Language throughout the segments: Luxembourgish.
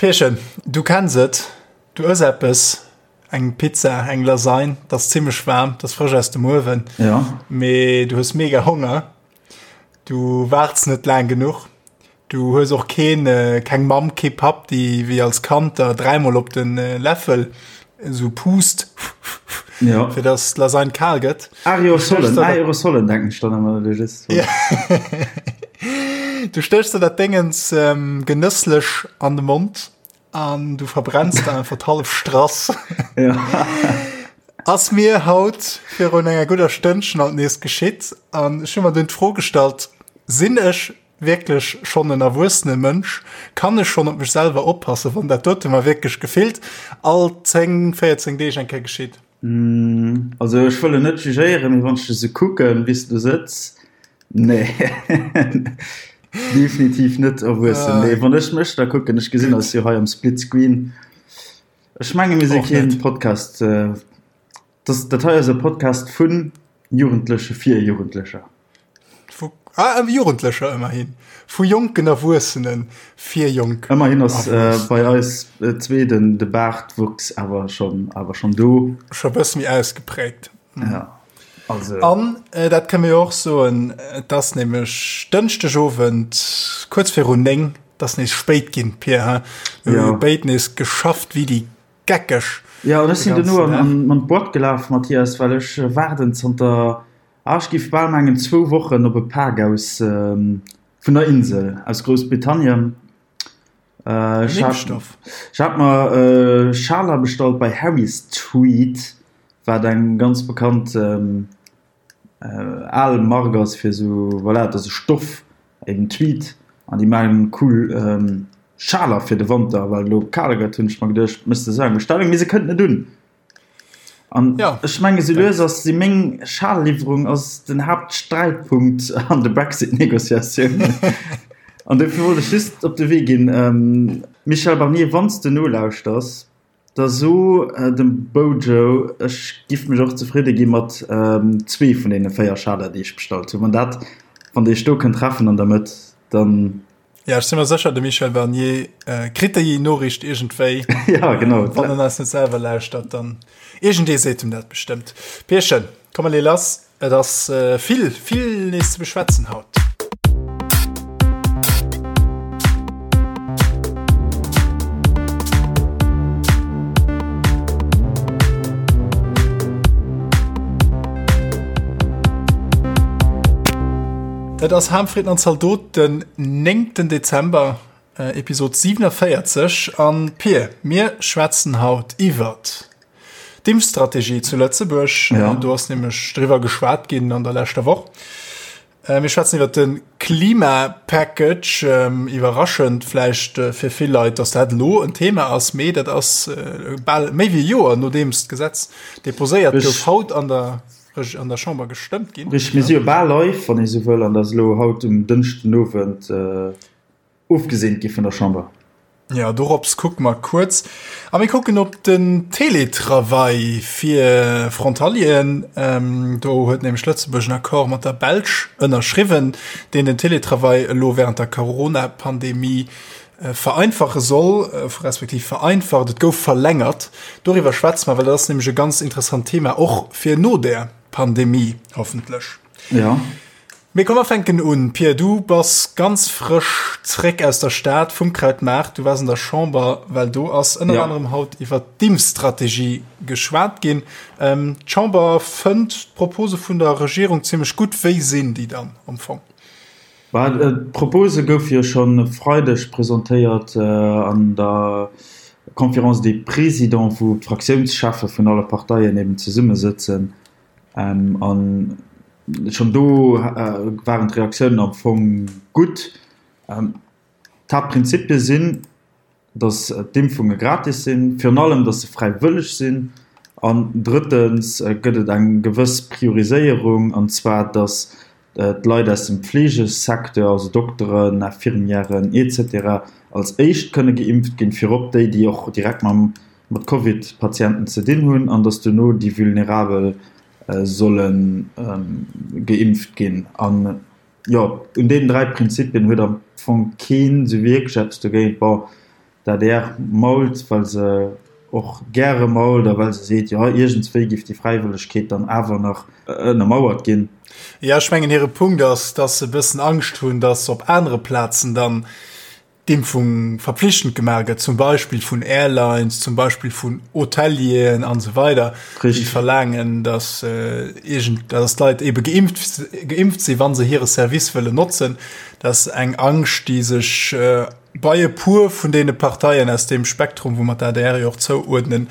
Pierchen, du kenns et, du ëss eppes, eng Pizza, eng Lasagne, 't ass zimmlech waarm, 't ass frësch aus dem Uewen, ja. mee du hues mega Honger, du waarts net laang genuch, du hues och keen, keng Mamm, kee Papp, déi wéi als Kand der dräimol op de Läffel esou puust, ja. fir dass d'Lasagne kal gëtt. Aerosolen, Aerosolen denken ech dann ëmmer, du just. Ja. Du stéchs der dat Déngens ähm, genësslech an de Mond an du verbrenns der einfach d'hallef Strass. Ja. Ass mir haut virun enger gudder Stënnchen alt nees geschitt an ech hu mer dunn d'Fro gestallt, sinn ech wierklech schonn en erwuessene Mënsch? Kann ech schonn op mech selwer oppassen, wann dat dote mer wierklech gefillt all 10, 14 Deeg eng Kéier geschitt? Mm, also ech wëll net jugéieren, mee wann ech dech esou kucken, wéi s du do sëtz, nee, definitiv net erwuessen. Nee, wann ech mech da kucken, ech gesinn eis jo hei am Split Screen. Ech menge mir si keen Podcast, dat, dat hei ass e Podcast vu Jugendleche fir Jugendlecher. Vu ah, Jugendlecher ëmmerhin. Vu jonken Erwuessene fir jonk. Ëmmerhin ass äh, bei eis äh, zwee den de Baartwuchs awer schon awer schon do. Scho bësse méi ausgeprägt. Mhm. Ja. Also. An äh, dat kënne mir och soen, et ass nämlech Dënschdegowend kuerz virun 9, et ass nees spéit ginn, Pir, he? Mir hu Ja. béid nees geschafft wéi déi Geckeg. Ja, an ech de sinn duerno ganzen an, Dag. an, an d'Boîte gelaf, Mathias, well ech äh, waarden zanter Ah, ech giff bal mengen zwou Wochen op e Pak aus vun der Insel, aus Groussbritannien. Ech hat, ech hat mer Schaler bestallt bei Harry's Tweed, wat eng ganz bekannt al Mark ass fir esou, voilà, et ass e Stoff, eben Tweed, an déi maachen cool Schaler fir de Wanter, well et elo kal gëtt, hunn ech mer geduecht, méchs de esou eng Bestellung, mee se kënnt net un. An ja, ech menge sou lues ass si meng Schalliwwerung ass den Haaptsträitpunkt an de Brexit-Negociatiounen. An dofir wollt ech just op de Wee ginn, ähm, Michel Barnier, wann s de nolauschters, da so äh, dem Bojo, ech giff mech och zefridde gi mat ähm, zwee vun deene 4 Schaler, déi ech bestallt hunn. Wann dat, wann Dir iech do kënnt treffen an der Mëtt, dann Ja, ech si mer sécher, de Michel Barnier äh, kritt déi Noriicht iergendwéi. Ja, genau. Wann en eis net selwer lauschtert, dann iergendee seet em dat bestëmmt. Pierchen, komm mer lee lass. Et ass äh, vill, vill nees ze beschwätzen haut. Et ass Harmfrieden an Zaldot den 9. Dezember, Episod 47. An Pir, mir schwätzen haut iwwert d'Impfstrategie zu Lëtzebuerg. Ja. Do ass nämlech driwwer geschwat ginn an der leschter Woch. Mir schwätzen iwwert de Klimapackage. Iwwerraschend vläicht fir vill Leit, datt dat elo en Thema ass, mee dat ass bal méi wéi e Joer, nodeems d'Gesetz deposéiert gouf, haut an der an der Chamber gestëmmt ginn. Richteg, mir si jo bal live, wann ee sou wëll, an dat ass elo haut um Dënschden Owend ofgeseent gi vun der Chamber. Jo, dorops kucke mer kuerz. A mir kucken op den Teletravail fir Frontalieren. Do huet nämlech Lëtzebuerg en Accord mat der Belsch ënnerschriwwen, deen den Teletravail elo wärend der Corona-Pandemie vereinfache soll, respektiv vereinfacht, et gouf verlängert. Doriwwer schwätze mer, well dat ass nämlech e ganz interessant Thema, och fir no der Pandemie hoffentlech. Ja. Mee komm, mer fänken un. Pia, du bass ganz frësch zréck aus der Stad vum Krautmaart. Du waars an der Chamber, well do ass ënner Ja. anerem haut iwwert d'Impfstrategie geschwat ginn. D'Chamber fënnt d'Propose vun der Regierung zimmlech gutt. Wéi sinn déi dann am Fong? D'Propose goufe jo schonn e Freideg presentéiert an der Conférence des Présidents, wou d'Fraktiounscheffe vun alle Parteien eben zesummesëtzen. A schonn do waren d'Reaktiounen am Fong gutt. D'Haaptprinzipie sinn, datt d'Impfunge gratis sinn, virun allem, datt se fräiwëlleg sinn an drëttens gëtt et eng gewëss Prioriséierung, an zwar datt d'Leit aus dem Fleegesecteur, also Dokteren, Infirmièren etc. Als éischt kënne geimpft ginn, virop déi, déi och direkt mam mat Covid-Patienten ze dinn hunn, an datt duerno déi Vulnerabel solle geimpft ginn. An Jo, un deenen 3 Prinzipien huet am Fong keen esou wierklech eppes dogéint. Bon, D'ADR mault, well se och gäre mault a well se seet, jo, iergendswéi géif déi Fräiwëllegkeet dann awer nach ënnermauert ginn. Jo, ech mengen, hire Punkt ass, dass se e bëssen Angscht hunn, dass op anere Plazen dann d'Impfung verpflichtend gemaach gëtt, zum Beispill vun Airlines, zum Beispill vun Hotelieren an esou weider, déi verlaangen, dass iergend, dass d'Leit ebe geimpft, geimpft sinn, wa se hire Service wëllen notzen. Dat ass eng Angscht, déi sech bei e puer vun deene Parteien aus deem Spektrum, wou mer d'ADR jo och zouuerdnen,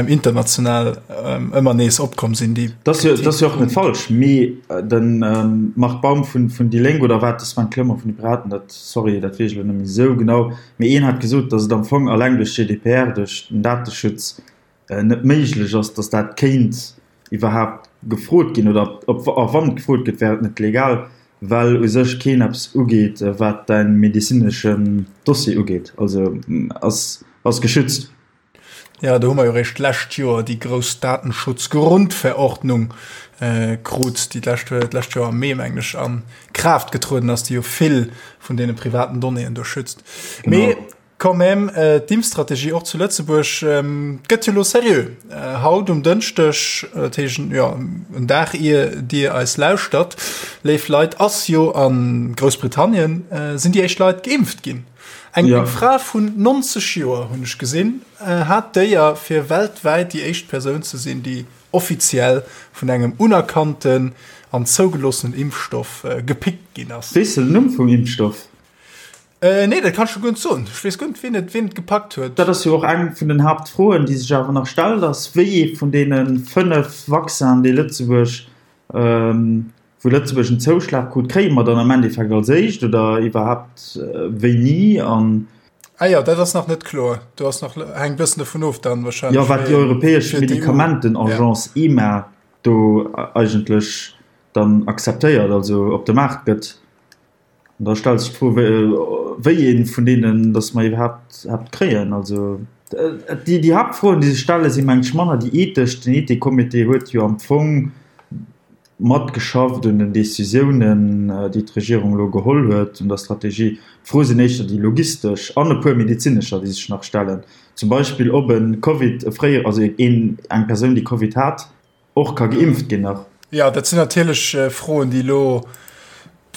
international ëmmer nees opkomm sinn, déi Dat ass jo, dat ass jo och net falsch, mee de Marc Baum vun, vun déi Lénk, oder war et de Sven Clement vun de Piraten, dat, sorry, dat weess ech elo net méi esou genau, mee een hat gesot, datt et am Fong alleng duerch GDPR, duerch den Dateschutz net méiglech ass, datt dat kéint iwwerhaapt gefrot ginn, oder ob, a wann et gefrot gëtt, wär et net legal, well u sech keen eppes ugeet, wat däi medezineschen Dossier ugeet, also ass, ass geschützt. Jo, do hu mer jo eréischt d'lescht Joer déi grouss Datenschutzgrundverordnung krut, déi d'lescht, d'lescht Joer am Mee, mengen ech, a Kraaft getrueden ass, déi jo vill vun deene privaten Donnéeën do schützt. Mee Quand même, d'Impfstrategie och zu Lëtzebuerg gëtt jo lo seriö. Haut um Dënschdeg, dat heescht jo en Dag ier Dir eis lauschtert, léif Leit, ass jo a Groussbritannien sinn déi éischt Leit geimpft ginn. Eng ja. Fra vun 90 Joer hunn ech gesinn, hat d'Éier fir weltwäit déi éischt Persoun ze sinn, déi offiziell vun engem unerkannten an zougeloossenen Impfstoff gepickt ginn ass. Weess de den Numm vum Impfstoff? Äh, nee, dat kann ech scho guer net soen. Ech weess guer net, wien et, wien et gepackt huet. Dat ass jo och eng vun den Haaptfroen, déi sech awer nach stellt, ass, wéi ee vun deene 5 Vaccinen, déi Lëtzebuerg, wou Lëtzebuerg en Zouschlag krut, kréie mer dann am Endeffekt als éischt oder iwwerhaapt wéini? An. Ah jo, dat ass nach net kloer. Do ass nach, hänkt e bëssen dovun of dann wahrscheinlech. Jo, wat déi europäesch Medikamentenagence EMA do eigentlech dann akzeptéiert, also op de Maart gëtt. An da stellt sech d'Fro, wéi ee vun deenen datt mer iwwerhaapt haapt kréien. Also déi, déi Haaptfroen, déi sech stellen, si meng ech manner déi ethesch. Den Ethikcomité huet jo am Fong matgeschafft un den Decisiounen, déi d'Regierung elo geholl huet, un der Strategie. D'Froe sinn éischter déi logistesch an e puer medezinescher, déi sech nach stellen. Zum Beispill, ob e Covid, e fréier, also een, eng Persoun, déi Covid hat, Och ka geimpft ginn nach. Jo, dat sinn natierlech Froen, déi elo,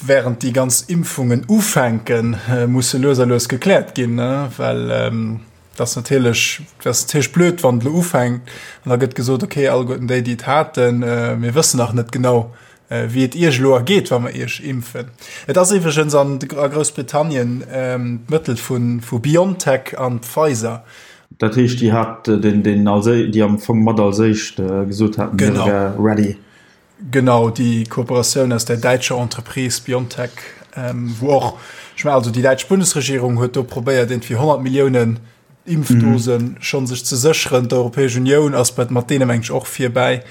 während déi ganz Impfungen ufänken, musse lues a lues gekläert ginn, well et ass natierlech, et ass natierlech blöd, wann et elo ufänkt an da gëtt gesot, okay, alleguerten déi, déi et haten, mir wëssen nach net genau, wéi et Iech elo ergeet, wa mer Iech impfen. Et ass iwwregens an a Groussbritannien d'Mëttel vu BioNTech an Pfizer. Dat heescht, déi hat den, den als, déi am Fong mat als éischt gesot haten, hie wär ready. Genau, déi Kooperatioun aus der däitscher Entreprise BioNTech, wou och, ech mengen, also déi däitsch Bundesregierung huet do probéiert, iergendwéi 100 Milliounen Impfdosen schonn sech ze sécheren. D'Europäesch Unioun ass bei mat deene meng ech och virbäi.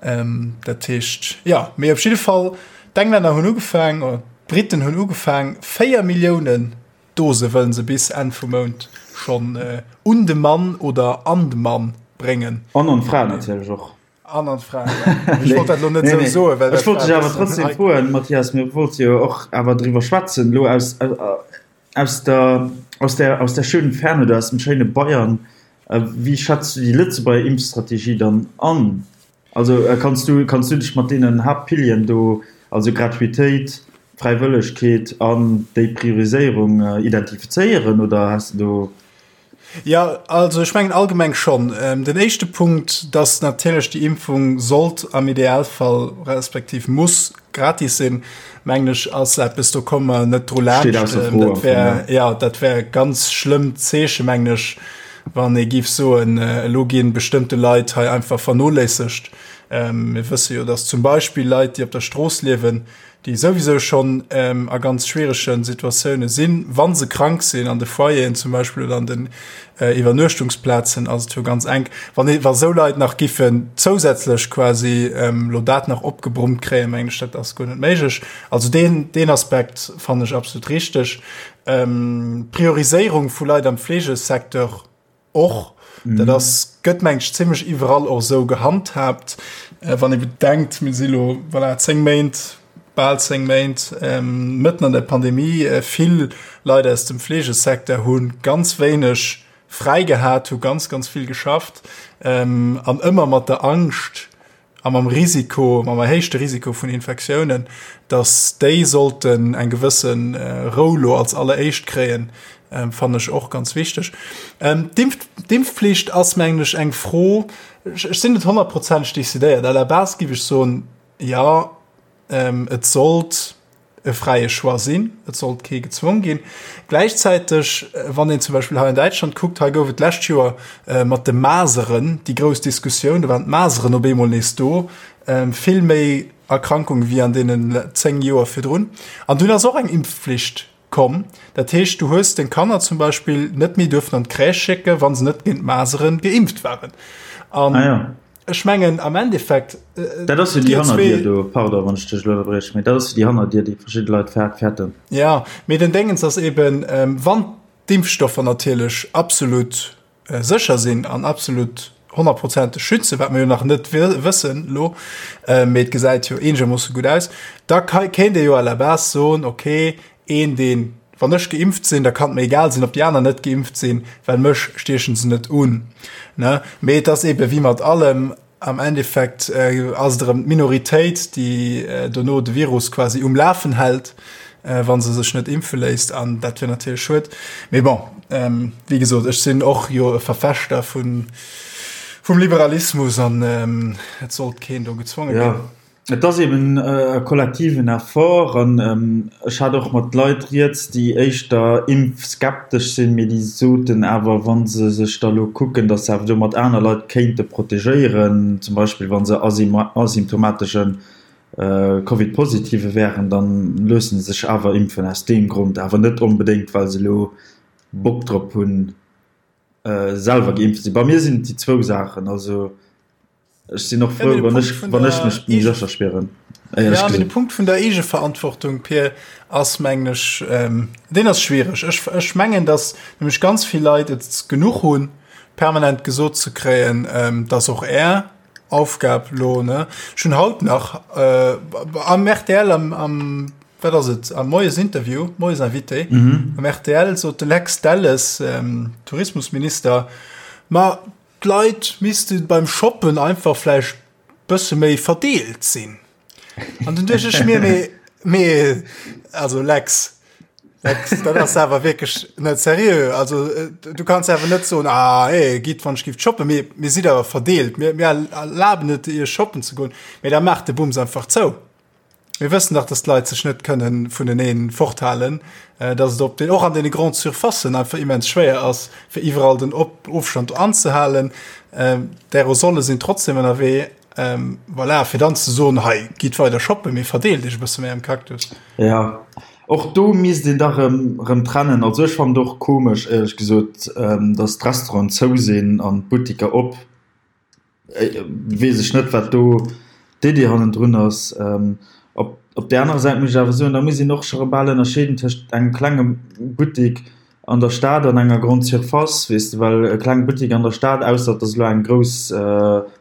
Ähm, dat heescht ja, mee op jidde Fall d'Englänner hunn ugefaang, oder d'Briten hunn ugefaang, 4 Milliounen Dose wëllen se bis Enn vum Mount schonn äh, un de Mann oder an de Mann bréngen. An an d'Fra natierlech och. An an d'Fra, ja. Ech wollt dat elo net esou soen, well dat. Ech wollt dech awer trotzdem froen, Mathias, mir wollte jo och awer driwwer schwätzen elo aus, Aus der, aus der, aus der schönen Ferne oder aus dem schéine Bayern, wéi schätz du déi Lëtzebuerger Impfstrategie dann an? Also kanns du, kanns du dech mat deenen Haaptpilieren do, also Gratuitéit, Fräiwëllegkeet an déi Prioriséierung identifizéieren oder has de do. Jo, also ech mengen allgemeng schonn. Den éischte Punkt, dass natierlech déi Impfung sollt am Idealfall respektiv muss gratis sinn, mengen ech, ass eppes, do komme mer net dru laanscht. Steet ausser Fro am Fong, ja. Jo, dat wär e ganz schlëmmt Zeeche, mengen ech, wann ee géif soen, elo gi bestëmmte Leit hei einfach vernoléissegt. Mir wësse jo, dass zum Beispill Leit, déi op der Strooss liewen, déi souwisou schonn a ganz schwierege Situatioune sinn, wa se krank sinn, an de Foyeren zum Beispill oder an den Iwwernuechtungsplazen ass et jo ganz enk. Wann ee, wa sou Leit nach giffen zousätzlech quasi elo dat nach opgebrummt kréien, mengen ech, dat ass guer net méiglech. Also deen, deen Aspekt fannen ech absolut richteg. D'Prioriséierung vu Leit am Fleegesecteur, Och dat ass, gëtt meng ech zimmlech iwwerall och esou gehandhaabt. Wann ee bedenkt, mir si lo, voilà, 10 Méint, bal 10 Méint mëtten an der Pandemie. Vill Leit aus dem Fleegesecteur hu ganz wéineg. fräi gehat, hu ganz, ganz vill geschafft an ëmmer mat der Angscht a mam Risiko, mam erhéichte Risiko vun Infektiounen, datt déi sollten eng gewësse Rou lo als alleréischt kréien, fannen ech och ganz wichteg. D'Impfflicht ass, mengen ech, eng Fro, ech sinn net honnertprozenteg decidéiert. À la base géif ech soen, jo, Et sollt e fräie Choix sinn, et sollt kee gezwong ginn. Gläichzäiteg, wann een zum Beispill hei an Däitschland kuckt, hei gouf et d'lescht Joer mat de Maseren déi grouss Diskussioun, do waren d'Maseren op eemol nees do, vill méi Erkrankunge wéi an deenen 10 Joer virdrun. An dunn ass och eng Impfflicht komm. Dat heescht, du hues deng Kanner zum Beispill net méi duerfen an d'Crèche schécken, wa se net géint d'Maseren geimpft waren. An ah, ja. ech mengen am Endeffekt. Äh, dat ass jo déi Hannerdier do, pardon, wann ech dech elo ënnerbrieche, mee dat ass jo déi Hannerdier, déi verschidde Leit fäerten. Ja, mee den Déngens ass eben, ähm, wann d'Impfstoffer natierlech absolut sécher sinn an absolut honnertprozenteg schützen, wat mir jo nach net wëssen elo, mee et gesäit jo eenegermoosse gutt aus, da kéint ee jo à la base soen, okay, een deen, wann ech geimpft sinn, da kann et mir egal sinn, ob déi aner net geimpft sinn, well mech stiechen se net un. Ne? Mee et ass eebe wéi mat allem, Am Endeffekt ass et erëm d'Minoritéit, déi dono de Virus quasi um Lafen hält, wa se sech net impfe léisst. An dat wier natierlech schued. Mee bon, wéi gesot, ech sinn och jo e Verfechter vum Liberalismus an et sollt keen do gezwonge ginn. Et ass eben e kollektiven Effort an ech hat och mat Leit rieds, déi éischter impfskeptesch sinn, mee déi soten awer, wa se sech da lo kucken, datt se awer domat aner Leit kéinte protegéieren, zum Beispill wa se asymptomatesche Covid-Positive wären, da loosse se sech awer impfen aus deem Grond, awer net onbedéngt, well se elo Bock drop hunn, selwer geimpft ze sinn. Bei mir sinn et déi zwou Saachen. Also Ech sinn och frou, wann ech, wann ech mech méi sécher spieren. Ja, mee de Punkt vun der Eegeverantwortung, Pir, ass, mengen ech, ähm, deen ass schwiereg. Ech, ech mengen, dass nämlech ganz vill Leit et genuch hunn, permanent gesot ze kréien, ähm, dass och Är Aufgab lo, ne? Ech hunn haut nach äh, am RTL, am, am, wat ass et, am Moiesinterview, Moiesinvité, mhm. am RTL sot de Lex Delles, ähm, Tourismusminister, ma D'Leit misste beim Shoppen einfach vläicht bësse méi verdeelt sinn. An dunn duecht ech mir, mee, mee, also Lex, Lex, dat ass awer wierklech net seriö. Also du kanns awer net soen, ah, hey, gitt wann ech gift shoppen, mee mir sidd awer verdeelt, mir, mir erlaben et iech shoppen ze goen, mee da maacht de Bums einfach zou. Mir wëssen dach, dass d'Leit sech net kënnen vuneneen forthalen, dass et op den, och an deene Grandes Surfacen einfach immens schwéier ass, fir iwwerall den Ofstand anzehalen. D'Aerosole sinn trotzdem ënnerwee. Voilà, fir dann ze soen, hei, gitt weider shoppen, mee verdeelt iech e bësse méi am Cactus. Jo, och do misst een dach erëm trennen. Also ech fannen et och komesch, éierlech gesot, dass d'Restauranten zou sinn an d'Buttiker op. Weess ech net, wat do d'Iddi hannendrun ass. Op, op där anerer Säit muss ech awer soen, da muss een och scho bal ënnerscheeden tëscht engem klenge Buttek an der Stad an enger Grande Surface, weess de, well e kleng Buttek an der Stad, ausser et ass elo eng grouss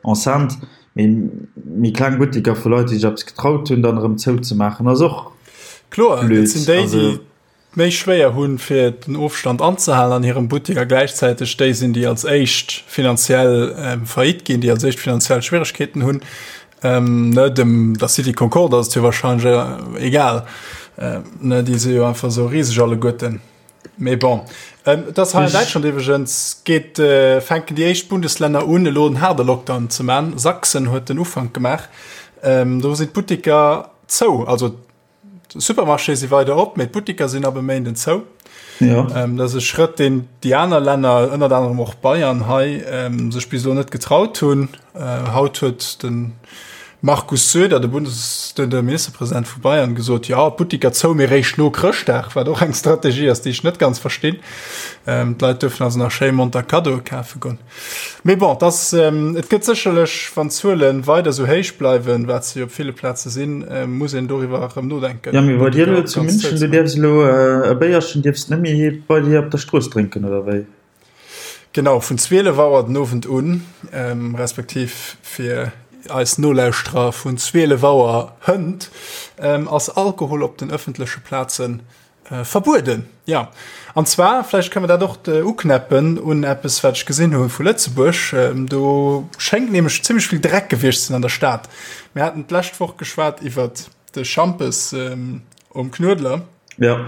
Enceinte, mee méi kleng Butteker vu Leit, déi sech eppes getraut hunn, dann erëm zouzemaachen, ass och Kloer, dat sinn déi, déi méi schwéier hunn, fir den Ofstand anzehalen an hirem Buttek a gläichzäiteg déi sinn, déi als éischt finanziell faillite ginn, déi als éischt finanziell Schwieregkeeten hunn. Ne, dem der City Concorde ass et jo wahrscheinlech egal, ne, déi si jo einfach esou riseg alleguerten. Mee bon, et ass hei an Däitschland iwwregens, geet, fänken déi éischt Bundeslänner un, elo en haarde Lockdown ze man. Sachsen huet den Ufank gemaach, do sinn d'Butteker zou, also D'Supermarchéë si weider op, mee d'Buttiker sinn ab e Méinden zou. Ja. Ähm, dat ass e Schrëtt, deen déi aner Länner, ënnert anerem och Bayern hei, ähm, sech bis elo net getraut hunn. Äh, haut huet de Markus Söder, de Bundes-, de, de Ministerpresident vu Bayern, gesot, ja, d'Buttiker zou, mee réischt no Chrëschtdag, wat och eng Strategie ass, déi ech net ganz verstinn. Ähm, d'Leit duerfen also nach schéi monter Kaddoe kafe goen. Mee bon, dass, et gëtt sécherlech, wann d'Zuele weider esou héich bleiwen, wat se jo op ville Plaze sinn, muss een doriwwer erëm nodenken. Jo, mee bei dir elo zu München, du dierfs elo e Béierchen dierfs net méi bei dir op der Strooss drénken, oder wéi? Genau, vun 12 Auer den Owend un, respektiv fir eis Nolauschterer vun 12 Auer hënt, ass Alkohol op den ëffentleche Plazen. Verbueden, jo. An zwar, vläicht kënne mer dat och uknäppen un eppes, wat ech gesinn hu vu Lëtzebuerg. Do schéngt nämlech zimmlech vill Dreck gewiescht ze sinn an der Stad. Mir haten d'lescht Woch geschwat iwwert de Schampes um Knuedler. Jo.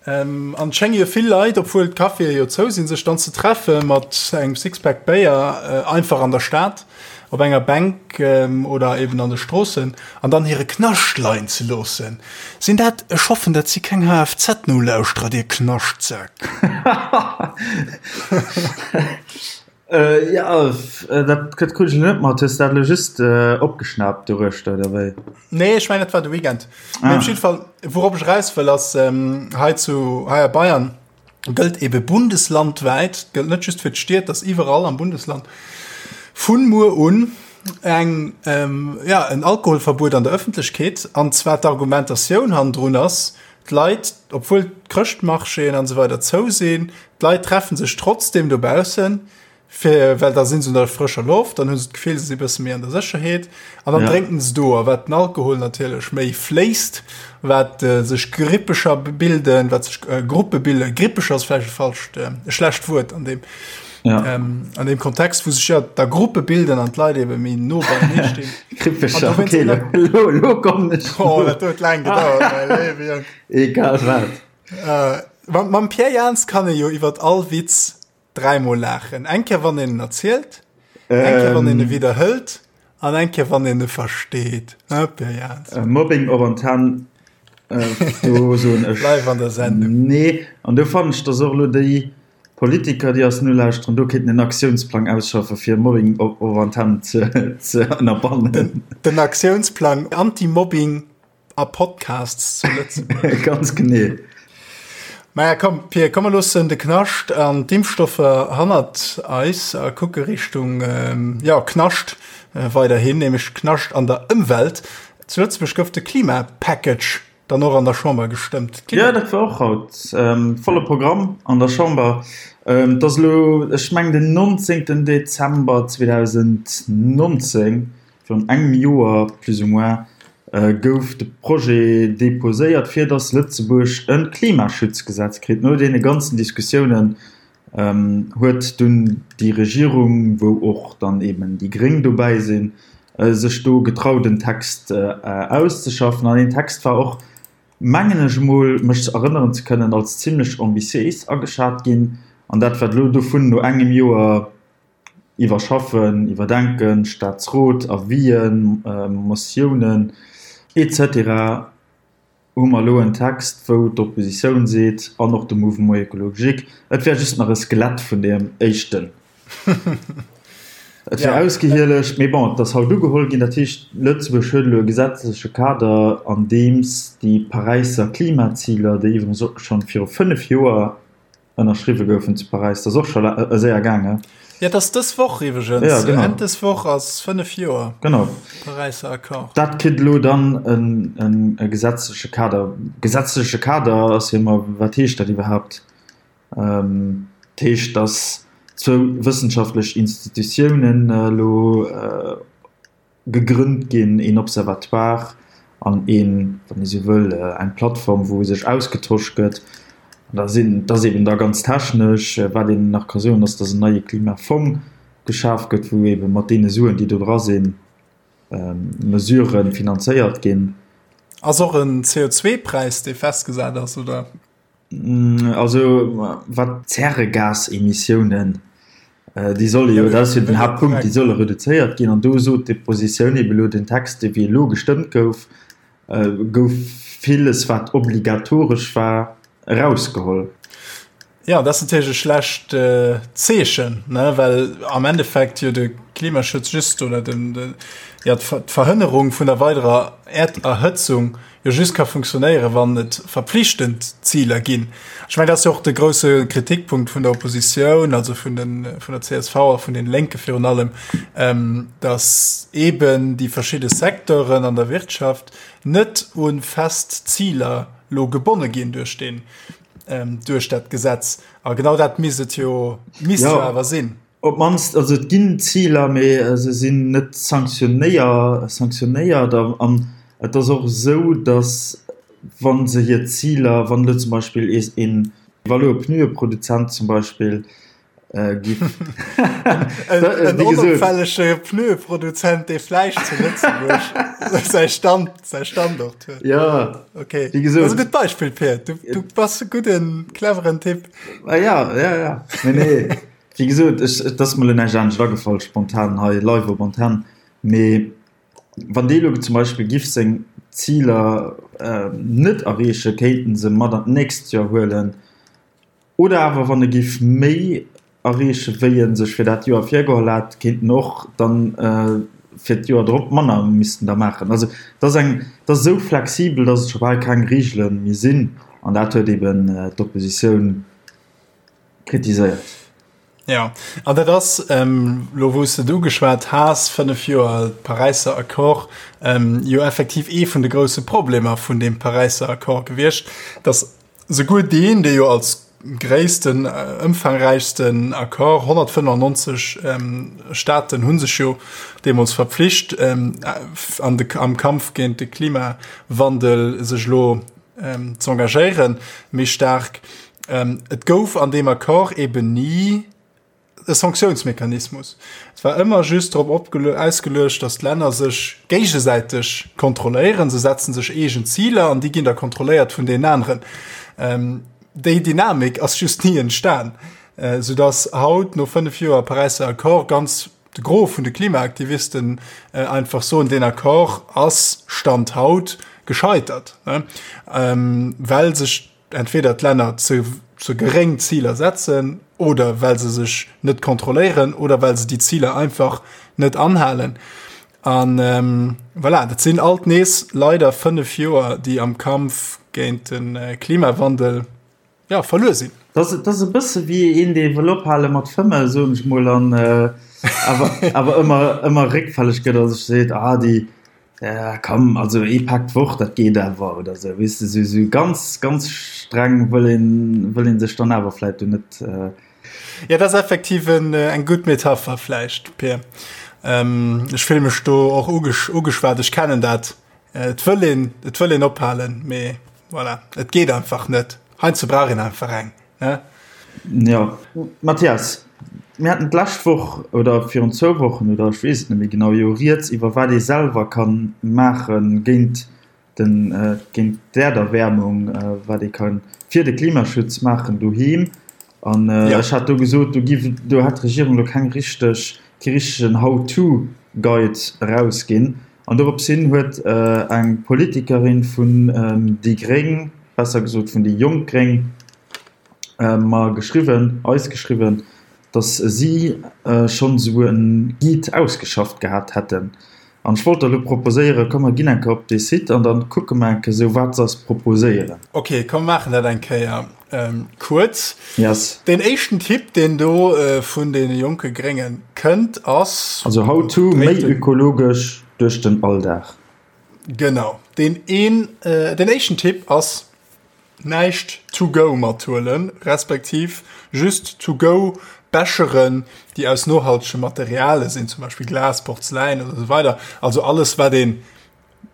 An et schénge jo vill Leit, obwuel d'Caféë jo zou sinn, sech dann ze treffe mat engem Sixpack Béier einfach an der Stad op enger Bänk oder eben an de Stroossen an dann hire Knascht leien ze loossen. Sinn dat, ech hoffen dat si keng HFZ-Nolauschterer, dir Knaschtsäck. Jo, dat krut ech elo net mat. Hues de dat elo just opgeschnaapt doruechter, oder wéi? Nee, ech mengen dat war de Weekend. Mee op jidde Fall, wourop ech eraus wëll, ass hei zu, hei a Bayern gëllt ebe bundeslandwäit, gëllt net just fir d'Stied, dat ass iwwerall am Bundesland, vun muer un eng, ja, en Alkoholverbuet an der Ëffentlechkeet. An zwar d'Argumentatioun hannendrun ass, d'Leit, obwuel d'Chrëschtmarchéen an esou weider zou sinn, d'Leit treffen sech trotzdem dobaussen, fir, well da sinn se un der frëscher Loft, dann hu se d'Gefill, se si bësse méi an der Sécherheet an dann ja. drénken se do. A wat den Alkohol natierlech méi fléisst, wat äh, sech Grippecher bilden, wat sech äh, Gruppe bilden, Grippecher ass vläicht e falscht, äh, e schlecht Wuert an dem ja. ähm, an dem Kontext, wou sech ja da Gruppe bilden an d'Leit eben méi no beienee stinn. Grippecher, okay, lo, lo, lo komm ech. Oh, dat huet laang gedauert, mäi léiwe Jong. Egal wat. Äh, mam, mam Pierre Jans kann ee jo iwwer all Witz dräimol laachen. Eng Kéier, wann een en erzielt, eng Kéier, wann een e ähm. widderhëlt an eng Kéier, wann een e versteet. Hein, Pierre Jans? Äh, Mobbing op Antenn, äh, do soen ech. Live an der Sendung. Nee, an do fannen ech, dass och elo déi Politiker, déi eis nolauschteren, do kéinten en Aktiounsplang ausschaffe fir Mobbing op Antenn ze, ze ënnerbannen. Den, den Aktiounsplang Anti-Mobbing a Podcasts zu Lëtzebuerg. Ganz genee. Maja komm Pir, komm mer loossen de Knascht an d'Impfstoffer hannert eis a kucke Richtung ähm, ja, Knascht äh, weiderhin, nämlech Knascht an der Ëmwelt. Zu Lëtzebuerg gouf de Klimapackage dann och an der Chamber gestëmmt. Ja, dat war och haut ähm, volle Programm an der Chamber. Ähm, dat ass elo, ech meng den 19. Dezember 2019, Virun engem Joer plus ou moins gouf de Projet deposéiert, fir datt Lëtzebuerg e Klimaschutzgesetz kritt. No deene ganzen Diskussiounen huet dunn déi Regierung, wou och dann eeben déi Gréng dobäi sinn, sech do getraut en Text auszeschaffen. An deen Text war och, mengen ech emol mech erënneren ze kënnen, als zimlech ambitiéis ageschat ginn. An dat, wat elo dovun no engem Joer Iwwerschaffen, iwwerdenken, Staatsrot, Avisen, Motiounen, etc. Hu mer elo en Text, wou d'Oppositioun seet, an och de Mouvement écologique, et wär just nach e Skelett vun deem éischten. Et wär ausgehielegt. Mee bon, et ass haut ugeholl ginn. Dat heescht, Lëtzebuerg huet elo e gesetzleche Kader, an deems déi Paräisser Klimaziler, déi iwwregens och schonn viru 5 Joer ënnerschriwwe goufen zu Paräis, dat ass och scho séier gaangen. Jo, dat ass dës Woch iwwregens. Ja, genau. Enn dës Woch ass 5 Joer. Genau. Paräisser Accord. Dat kritt elo dann en e gesetzleche Kader. Gesetzleche Kader ass jo ëmmer, wat heescht dat iwwerhaapt? Dat heescht, datt zwou wëssenschaftlech Institutiounen elo Gegrënnt ginn, een Observatoire an een, wann ee sou wëll, eng Plattform, wou sech ausgetosch gëtt. An da sinn, dat ass eeben da ganz technesch. Wat een nach ka soen, ass, datt en neie Klimafong geschaf gëtt, wou eebe mat deene Suen, déi do dra sinn, Mesurë finanzéiert ginn. Ass och en CO2-Präis, dee festgesat ass, oder? Also wat d'Zäregasemissiounen, déi solle jo, dat ass jo den Haaptpunkt, déi solle reduzéiert ginn. An do sot d'Oppositioun ebe lo, den Text, dee wéi elo gestëmmt gouf, gouf villes, wat obligatoresch war, erausgeholl. Jo, dat ass natierlech e schlecht Zeechen, ne, well am Endeffekt jo de Klimaschutz just oder den, jo, d'Verhënnerung vun der weiderer Äerderhëtzung jo just ka funktionéieren, wann et verpflichtend Ziler ginn. Ech mengen, dat ass jo och de grousse Kritikpunkt vun der Oppositioun, also vun den, vun der csv a vun den Lénke virun allem, dass eeben déi verschidde Secteuren an der Wirtschaft net u fest Ziler lo gebonne ginn duerch deen, duerch dat Gesetz. A genau dat misst et jo, misst jo awer sinn. Op d'mannst, also et ginn Ziler, mee se sinn net sanktionéiert. An et ass och esou, datt. wa se hir Ziler, wann elo zum Beispill een, wa elo e Pneueproduzent zum Beispill giff en onopfällege Pneueproduzent, dee vläicht zu Lëtzebuerg säi Stand, säi Standort huet. Ja, okay. Wéi gesot. Dat ass e gutt Beispill, Pir. Du, du bass e gudden, cleveren Typ. Ah, ja, ja, ja. Nee, nee. Wéi gesot, ech, et ass mer elo näischt anescht agefall, spontan hei live op Antenn. Mee wann dee elo zum Beispill giff seng Ziler net erreechen, kéint en se mat an d'nächst Joer huelen. Oder awer wann e giff méi erreechen, wéi e sech fir dat Joer virgeholl hat, kéint en och dann fir d'Joer drop manner missten da maachen. Also et ass eng, et ass esou flexibel, datt et scho bal keng Reegele méi sinn. An dat huet eben d'Oppositioun kritiséiert. Jo, an dat ass, elo wou s de et ugeschwat has, 5 Joer Paräisser Accord, jo effektiv ee vun de grousse Problemer vun deem Paräisser Accord gewiescht, datt souguer deen, dee jo als gréissten, ëmfangräichsten Accord, 195 Staaten hu sech jo deemools verpflicht, an de, am Kampf géint de Klimawandel sech elo z'engagéieren, méi staark, Et gouf an deem Accord eben ni e Sanktiounsmechanismus. Et war ëmmer just drop ausgeluecht, datt d'Länner sech géigesäiteg kontrolléieren. Se setzen sech eegen Ziler an déi ginn da kontrolléiert vun deenen aneren. Déi Dynamik ass just ni entstan, soudatt haut no 5 Joer Paräisser Accord ganz de Gros vun de Klimaaktivisten einfach soen, deen Accord ass Stand haut gescheitert, well sech entweder d'Länner ze ze geréng Ziler setzen oder well se sech net kontrolléieren oder well se déi Ziler einfach net anhalen. An ähm, voilà, dat sinn alt nees leider 5 Joer, déi am Kampf géint den äh, Klimawandel ja, verluer sinn. Dat ass e bësse wéi een, dee wëll ophale mat fëmmen, soen ech mol, an äh, awer, awer ëmmer, ëmmer réckfälleg gëtt a sech seet, ah, déi, Ja komm, also ee Pak d'Woch, dat geet awer oder sou, weess de, sou sou ganz ganz streng wëll een wëll een sech dann awer vläit do net. Ja, dat ass effektiv en eng gutt Metapher vläicht, Pir. Ech fille mech do och ugeschwat, ech kennen dat, et wëll een et wëll een ophalen, mee voilà, et geet einfach net. Heiansdo brauch een einfach eng. Ne? Jo, Mathias, mir haten d'lescht Woch oder virun zwou Wochen oder ech weess et net méi genau, jo rieds iwwer wat ee selwer ka maache géint den, géint d'Äerderwäermung, wat ee ka fir de Klimaschutz maachen doheem. An ech hat do gesot, do giff, do hätt d'Regierung elo keng richteg, kee richtegen How-to-Guide erausginn. An dorops hin huet eng Politikerin vun déi gréng, besser gesot vun déi jonk gréng, mer geschriwwen, eis geschriwwen, datt si schonn esou e Guide ausgeschafft gehat hätten. An ech wollt der elo proposéieren, komm mer ginn eng Kéier op dee Site an da kucke mer eng Kéier esou, wat se eis proposéieren. Ok, komm mer maachen dat eng Kéier kuerz. Yes. Deen éischten Tipp, deen do vun deene jonke Grénge kënnt, ass. Also how to, méi ökologesch duerch den Alldag. Genau, deen een, deen éischten Tipp ass, näischt to go mathuelen, respektiv just to go Becheren, déi aus nohaltege Materiale sinn, zum Beispill Glas, Porzeläin oder esou weider. Also alles, wat een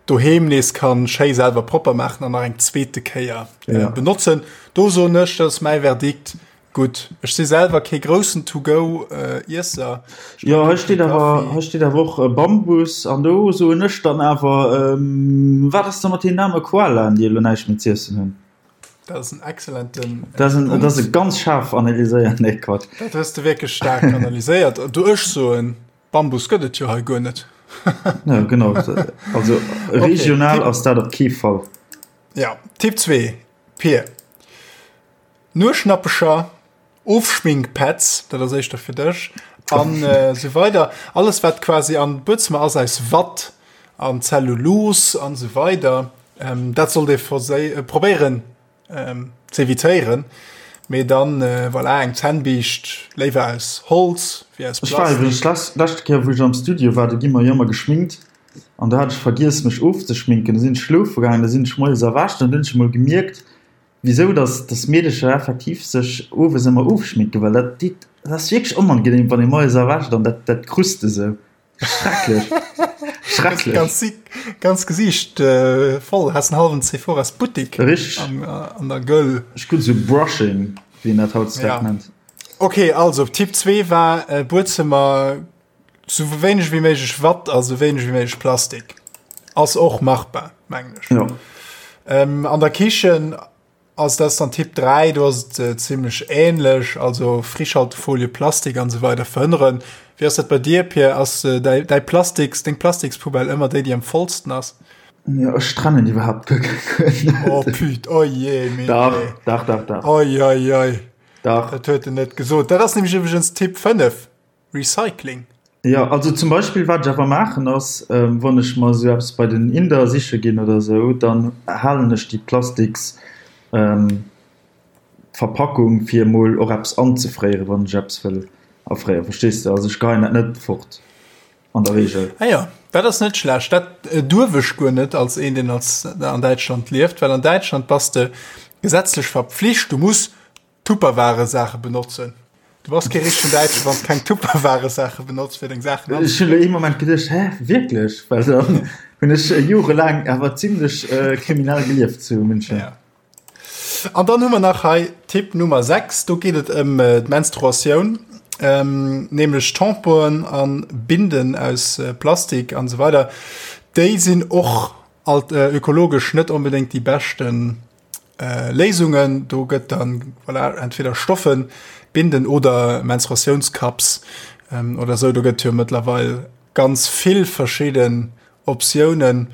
doheem nees kann schéi selwer propper maachen an nach eng zweete Kéier ja. benotzen. Do soen ech, dat ass mäi Verdikt, Gutt, ech si selwer kee groussen To-Go-Iesser. Jo, hei steet awer, hei steet awer och Bambus an do soen ech dann awer, wat ass da mat deenen aarme Koalaen, déi elo näischt méi z'iessen hunn? Dat ass en excellenten Dat ass en, dat ass e ganz schaarf analyséiert, nee Quatsch. Dat hues de wierklech staark analyséiert. Du, ech soen, Bambus gëtt et jo hei guer net. Ja, genau. Also regional ass dat op kee Fall. Ja, Tipp 2, Pir. Nueschnappecher, Ofschminkpads, dat ass éischter fir dech, an esou weider. Alles wat quasi an Buedzëmmer ass aus Watt an Zellulose an esou weider, dat sollt ee probéieren z'evitéieren. Mee dann, voilà, eng Zännbiischt léiwer aus Holz wéi aus Ech war iwwregens Plastik. d'lescht Kéier wou ech am Studio war, do gi mer jo ëmmer geschminkt an do hat ech vergiess mech ofzeschminken. Da sinn ech schlofe gaangen, da sinn ech moies erwächt an dunn hunn ech emol gemierkt, Wisou dass dass Meedecher effektiv sech owes ëmmer ofschminken, well dat deet, dat ass wierklech onangenehm wann ee moies erwächt an dat dat krust esou. Schrecklech. Schrecklech. Ganz, ganz Gesicht äh, voll. Hast einen halben Sephoras Buttik. Richtig. An, äh, an der Göll. Ech krut so Brushing, wéi een dat hautdesdaags ja. nennt. Okay, also Tipp 2 war äh, Buedzëmmer sou wéineg wéi méiglech Watt a sou wéineg wéi méiglech Plastik. Ass och machbar, mengen ech. Ja. Ähm, an der Kichen ass das dann Tipp 3, do ass et äh, ziemlech ähnlech, also Frischhaltefolie, Plastik an so weider verhënneren. Wéi ass dat bei dir, Pierre? Ass äh, däi, däi Plastiks, deng Plastikspoubelle ëmmer déi, déi am vollsten ass? Ja, ech trennen iwwerhaapt guer keng. Oh püt, oh je, mee Dach, dach, dach, dach. Oi, oi, oi. Dach. Dat huet en net gesot. Dat ass nämlech iwwregens Tipp 5. Recycling. Jo, also zum Beispill wat ech awer maachen ass, wann ech mer esou eppes bei den Inder siche ginn oder esou, dann halen ech déi plastiks Verpackung fir emol och eppes anzefréieren, wann ech eppes wëll afréieren, verstees de? Also ech geheien dat net fort an der Reegel. Ah jo, dat ass net schlecht. Dat duerf ech guer net als een, deen als an Däitschland lieft, well an Däitschland bass de gesetzlech verpflicht, du muss Tupperware-Saache benotzen. Du bass kee richtegen Däitschen, wann s keng Tupperware-Saache benotz fir deng Saachen Ech hunn elo ee Moment geduecht, hä, wierklech? Well dann hunn ech jorelaang awer zimlech kriminell gelieft zu München. Ja. An dann hu mer nach hei Tipp Nummer 6, do geet et ëm d'Menstruatioun, nämlech Tamponen a Binden aus Plastik an esou weider. Déi sinn och alt ökologesch net onbedéngt déi beschten Léisungen. Do gëtt dann voilà, entweder Stoffen, Binden oder Menstruatiounscups oder esou. Do gëtt jo mëttlerweil ganz vill verschidden Optiounen.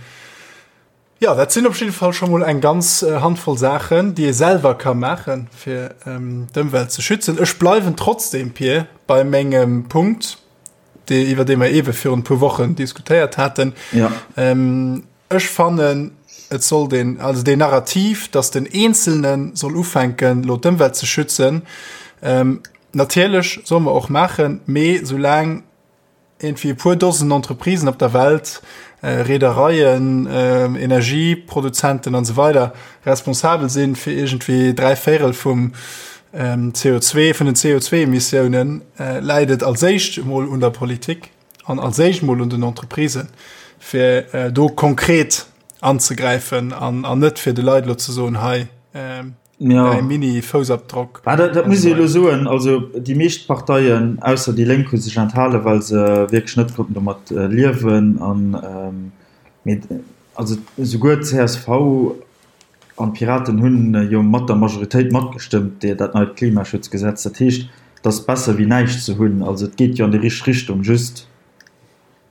Jo, dat sinn op jidde Fall scho mol eng ganz Handvoll Saachen, déi ee selwer ka maachen, fir d'Ëmwelt ze schützen. Ech bleiwen trotzdem, Pir, bei mengem Punkt, dee, iwwer dee mer eebe virun e puer Wochen diskutéiert haten. Ja. Ech fannen, et sollt een, also deen Narrativ, dass den Eenzelne soll ufänken, elo d'Ëmwelt ze schützen, natierlech solle mer och maachen, mee soulaang iergendwéi e puer Dosen Entreprisen op der Welt, Reedereien, Energieproduzenten an esou weider responsabel sinn fir iergendwéi 3 Véirel vum CO2, vun den CO2-Emissiounen, läit et als éischt emol un der Politik an als éischt emol un den Entreprisen, fir do konkret anzegräifen an net fir de Leit elo ze soen, hei, Ja. Däi Mini-Foussabdrock. Ah, dat, dat muss ee elo soen. Also déi meescht Parteien, ausser déi Lénk, hu sech enthalen, well se wierklech net konnten domat liewen. An, mee also esouguer d'CSV an d'Piraten hunn jo mat der Majoritéit matgestëmmt, déi dat neit Klimaschutzgesetz. Dat heescht, et ass besser wéi näischt ze hunn. Also et geet jo an déi richteg Richtung, just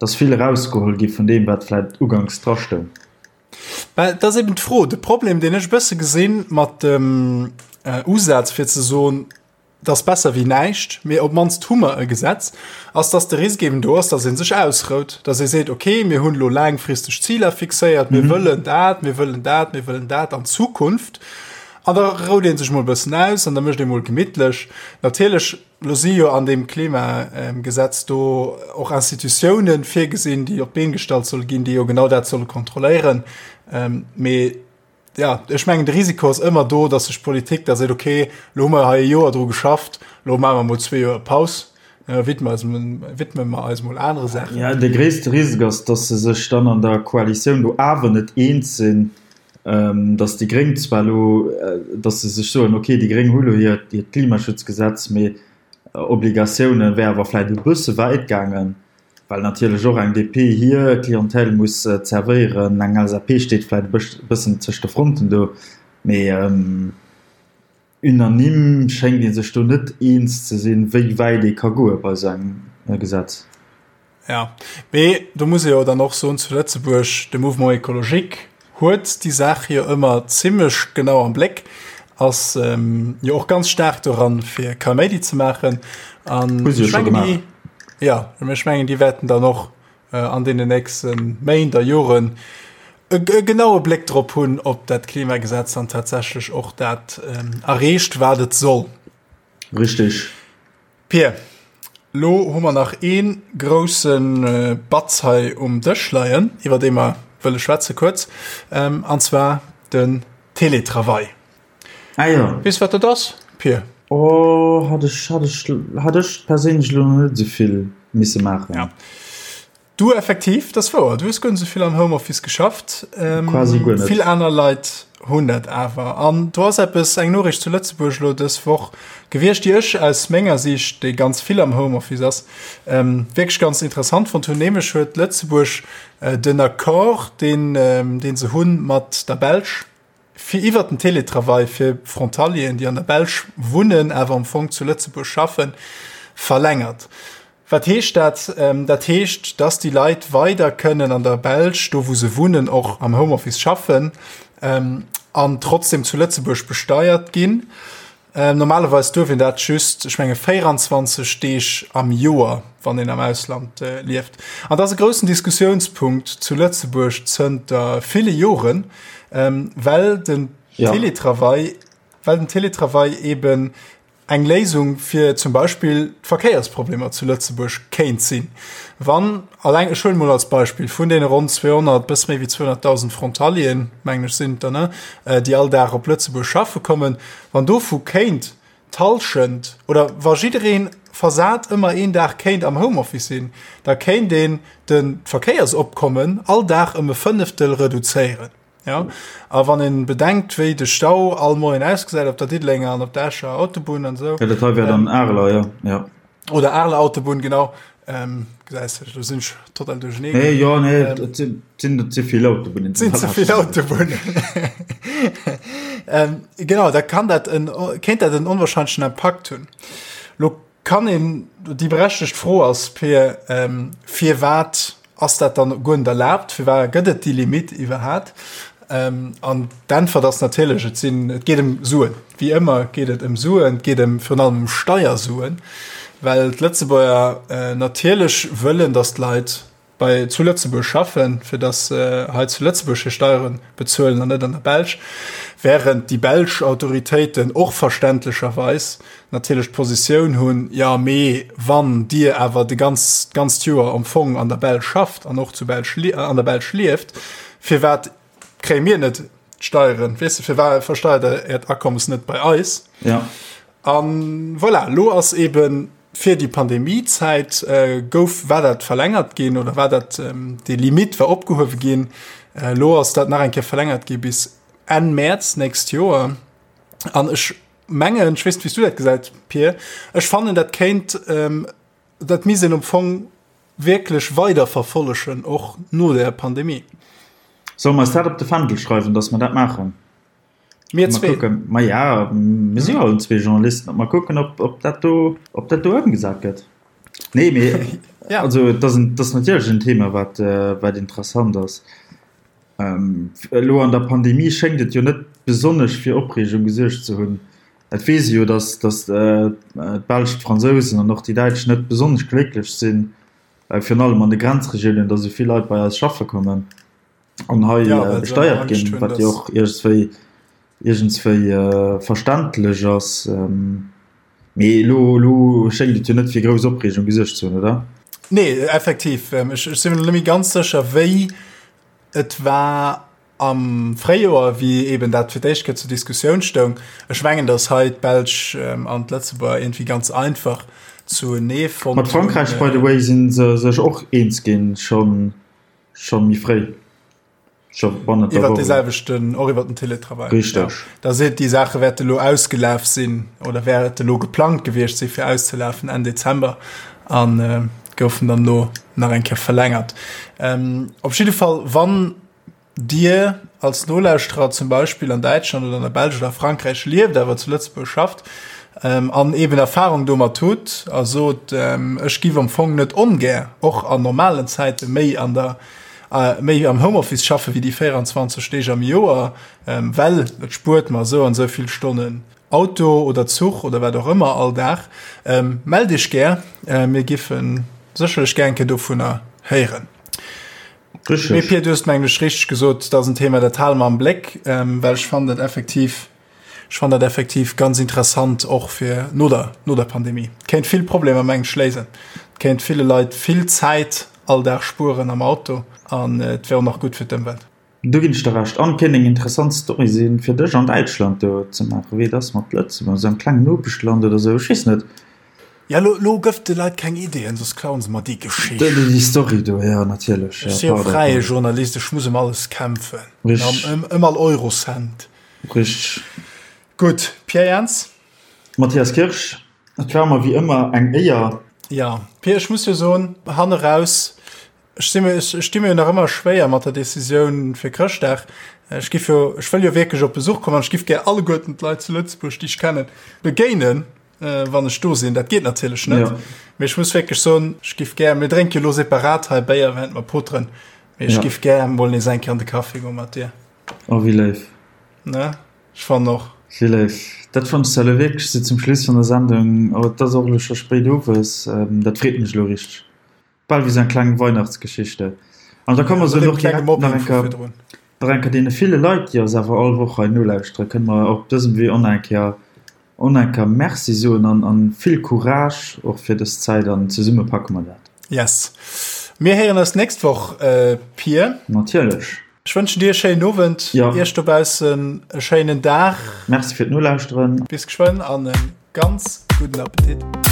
dass vill erausgeholl gi vun deem, wat vläicht uganks drastoung. Well dat ass eben d'Fro, de Problem, deen ech e bësse gesinn mat dem Usaz, fir ze soen, et ass besser wéi näischt, mee op d'mannst hu mer e Gesetz, ass, dass de Risk eben do ass, dass ee sech ausrout, dass ee seet, okay, mir hunn elo laangfristeg Ziler fixéiert, mir wëllen dat, mir wëllen dat, mir wëllen dat an Zukunft. An da rout ee sech mol e bëssen aus an da mécht ee mol gemittlech. Natierlech Lo si jo an deem Klimagesetz do och Institutiounen virgesinn, déi op d'Been gestallt solle ginn, déi jo genau dat solle kontrolléieren. Mee ja, ech mengen, de Risiko ass ëmmer do, datt sech d'Politik da seet, okay, lo hu mer hei e Joer dru geschafft, lo maache mer mol zwee Joer Paus, widme eis, widme mer eis mol anere Saachen. Ja, de gréisste Risk ass, datt se sech dann an der Koalitioun do awer net eens sinn. Datt déi Gréng zwar elo, datt se sech soen, okay, déi Gréng hu lo hiert Klimaschutzgesetz, mee Obligatioune wär awer vläicht e bësse wäit gaangen, well natierlech och eng DP hir Clientèle muss zerwéieren. Eng LSAP steet vläicht e bëssen tëscht de Fronten do, mee. Unanime schéngt ee sech do net eens ze sinn, wéi wäit ee ka goe bei esou engem Gesetz. Jo, mee do muss ee jo dann och soen, zu Lëtzebuerg, de Mouvement écologique huet déi Saach jo ëmmer zimlech genau am Bléck, ass jo och ganz staark doran, fir Kaméidi ze maachen. An Hu se jo ech scho mengen, déi, gemaach. jo, ech mengen, déi wäerten dann och an deenen nächste Méint a Joren e genaue Bléck drop hunn, ob dat Klimagesetz dann tatsächlech och dat erreecht, wat et soll. Richtig. Pir, lo hu mer nach ee grousse Batz hei um Dësch leien, iwwer dee mer wëlle schwätze kuerz, an zwar den Teletravail. Ah jo. Weess wat dat ass, Pir? Oh, hat ech, hat ech, hat ech perséinlech elo nach net esou vill misse maachen. Ja. Du effektiv, dat ass wouer, du hues guer net esou vill am Homeoffice geschafft. Quasi guer net. Vill aner Leit hunn dat awer. An do ass eppes, eng Noriicht zu Lëtzebuerg elo dës Woch gewiescht, déi ech aus menger Siicht, déi ganz vill am Homeoffice ass, wierklech ganz interessant fonnt hunn. Nämlech huet Lëtzebuerg den Accord, deen, dee se hunn mat der Belsch, fir iwwert den Teletravail fir Frontalieren, déi an der Belsch wunnen, awer am Fong zu Lëtzebuerg schaffen, verlängert. Wat heescht dat? Dat heescht, dass déi Leit weider kënnen an der Belsch, do wou se wunnen, och am Homeoffice schaffen an trotzdem zu Lëtzebuerg besteiert ginn. Normalerweis duerf een dat just, ech menge 24 Deeg am Joer, wann een am Ausland lieft. An dat ass e groussen Diskussiounspunkt zu Lëtzebuerg zënter ville Joren, well den Teletravail, well den Teletravail eben eng Léisung fir zum Beispill d'Verkéiersproblemer zu Lëtzebuerg kéint sinn, wann alleng, ech huelen emol als Beispill, vun deene ronn 200, bësse méi wéi 200.000 Frontalieren, mengen ech sinn et der, ne, déi all Dag op Lëtzebuerg schaffe kommen, wann dovu kéint d'Hallschent oder wa jidderee versat ëmmer een Dag kéint am Homeoffice sinn, da kéint een de d'Verkéiersopkommen all Dag ëm e Fënneftel reduzéieren. Ja, a wann een bedenkt, wéi de Stau all Moien ausgesäit op der Diddelenger an op der Escher Autobunn an esou. Ja, dat hei wär dann Areler, ja, ja. Oder Areler Autobunn, genau. Ähm, gesäis de, do sinn ech total duerchenee. Nee, jo, nee, ähm, dat sinn, sinn der ze vill Autobunnen. Sinn ze vill Autobunnen. ähm, genau, da kann dat en, kéint dat en onwahrscheinlechen Impakt hunn. Lo Kann een, déi berechtegt Fro ass, Peer, firwat ass dat dann guer net erlaabt? Firwat gëtt et déi Limitt iwwerhat? An d'Äntwert ass natierlech, et sinn, et geet ëm Suen. Wéi ëmmer geet et ëm Suen, et geet ëm virun allem ëm Steiersuen, well d'Lëtzebuerger natierlech wëllen, datt d'Leit bei zu Lëtzebuerg schaffen, fir dass se hei zu Lëtzebuerg hir Steiere bezuelen an net an der Belsch, während déi belsch Autoritéiten och verständlecherweis natierlech d'Positioun hunn, jo mee wann Dir awer de ganz, d'ganzt Joer am Fong an der Belsch schafft an och zu Belsch, an der Belsch lieft, firwat kréie mir net d'Steieren, weess de, firwat versteiert Der Äert Akommes net bei eis? Ja. An voilà, lo ass eben fir déi Pandemiezäit gouf, war dat verlängert ginn oder war dat, déi Limite war opgehuewe ginn. Lo ass dat nach eng Kéier verlängert gi bis Enn Mäerz nächst Joer. An ech mengen, ech weess net, wéi s du dat gesäit, Pir, ech fannen, dat kéint, dat misst een am Fong wierklech weiderverfollegen, och no der Pandemie. Solle mer eis dat op de Fändel schreiwen, datt mer dat maachen? Mir zwee. Kucken. Ma ja, mir si jo allen zwee Journalisten. Mal kucken, ob, ob dat do, ob dat do ëmgesat gëtt. Nee, mee ja. also dat ass, dat ass natierlech en Thema, wat, äh, wat interessant ass. Ähm, elo an der Pandemie schéngt et jo net besonnesch fir Opreegung gesuergt ze hunn. Et weess ee jo, datt, datt äh, d'Belsch, d'Fransousen an och déi Däitsch net besonnesch glécklech sinn, äh, virun allem an de Grenzregiounen, datt esou vill Leit bei eis schaffe kommen. an hei ja, äh, besteiert ginn, wat jo och iergendswéi iergendswéi äh, verständlech ass. Ähm, mee lo, lo schéngt et jo net fir grouss Opreegung gesuergt ze hunn, oder? Nee, effektiv. Ähm, ech, ech sinn mir net méi ganz sécher, wéi et war am Fréijoer, wéi eben dat fir d'éischt Kéier zur Diskussioun stoung. Ech mengen, datt hei d'Belsch ähm, an d'Lëtzebuerger irgendwie ganz einfach zuenee fonnt Mat Frankräich, by the way, si se sech och eens ginn, schonn Scho méi fréi. Scho bannent der Woch. Iwwert dee selwechten, och iwwert den Teletravail. Richteg. Ja. Da seet déi Saache wäerte lo ausgelaf sinn oder wäerte lo geplangt gewiescht si fir auszelafen Enn Dezember an äh, goufen dann lo nach eng Kéier verlängert. Ähm, op jidde Fall, wann Dir als Nolauschterer zum Beispill an Däitschland oder an der Belsch oder Frankräich lieft, awer zu Lëtzebuerg schafft ähm, an eben Erfahrung domat hutt a sot, ähm, ech giff am Fong net ongär och an normalen Zäite méi an der äh, méi am Homeoffice schaffe wéi déi 24 Deeg am Joer, ähm, well et spuert mer esou an esou vill Stonnen Auto oder Zuch oder wat och ëmmer all Dag, ähm, mellt Iech gär, äh, mir giffen sécherlech gär eng Kéier dovunner héieren. Richtig. Mee Pir, du hues mengen ech richteg gesot, dat ass en Thema, dat hale mer am Bléck, ähm, well ech fannen dat effektiv, ech fannen dat effektiv ganz interessant och fir no der, no der Pandemie. Kéint vill Problemer mengen ech léisen. Kéint ville Leit vill Zäit all Dag spueren am Auto an et wär och nach gutt fir d'Ëmwelt. Do ginn ech der Recht. An kéint eng interessant Story sinn, fir dech an Däitschland do ze maachen, wéi et ass mat Lëtzebuerg, esou engem klengen Nopeschland oder esou, ech weess net. Ja, lo, lo gëff de Leit keng Ideeën, soss klauen se mer déi Geschicht. Déi, déi Story do, ja, natierlech. Ech si jo fräie Journalist, ech muss ëm alles kämpfen. Richteg. Ëm, ëm all Eurocent. Richteg. Gutt, Pierre Jans. Mathias Kirsch, et war mer wéi ëmmer eng Éier. Ja, Pierre, ech muss jo soen, hanne raus, Ech si mir, ech sti mir jo nach ëmmer schwéier mat der Decisioun fir Chrëschtdag. Ech giff jo, ech wëll jo wierklech op Besuch kommen an ech giff gär alleguerten d'Leit zu Lëtzebuerg, déi ech kennen, begéinen, wann ech do sinn. Dat geet natierlech net. Ja. Mee ech muss wierklech soen, ech giff gär, mir drénke jo elo separat hei Béier, während mer poteren, mee ech Ja. giff gär mol nees eng Kéier an de Café goe mat dir. Oh, wéi léif. Ne? Ech fannen och. Wéi léif. Dat fannen ech elo wierklech esou zum Schluss vun der Sendung. Oh, et ass och elo scho spéit owes. Dat freet mech elo richteg. Bal wéi sou eng kleng Weihnachtsgeschichte. An da komme mer sou och direkt nach eng Kéier, nach eng Kéier deene ville Leit, déi eis awer all Woch hei nolauschteren, kënne mer op dësem Wee och nach eng Kéier, och nach eng Kéier Merci soen an, an vill Courage och fir dës Zäit an zesumme packe mer dat. Yes. Mir héieren eis d'nächst Woch, Pir. Natierlech. Ech wënschen dir e schéinen Owend, Ja. iech dobaussen e schéinen Dag. Merci fir d'Nolauschteren. Bis geschwënn an e ganz gudden Appetit.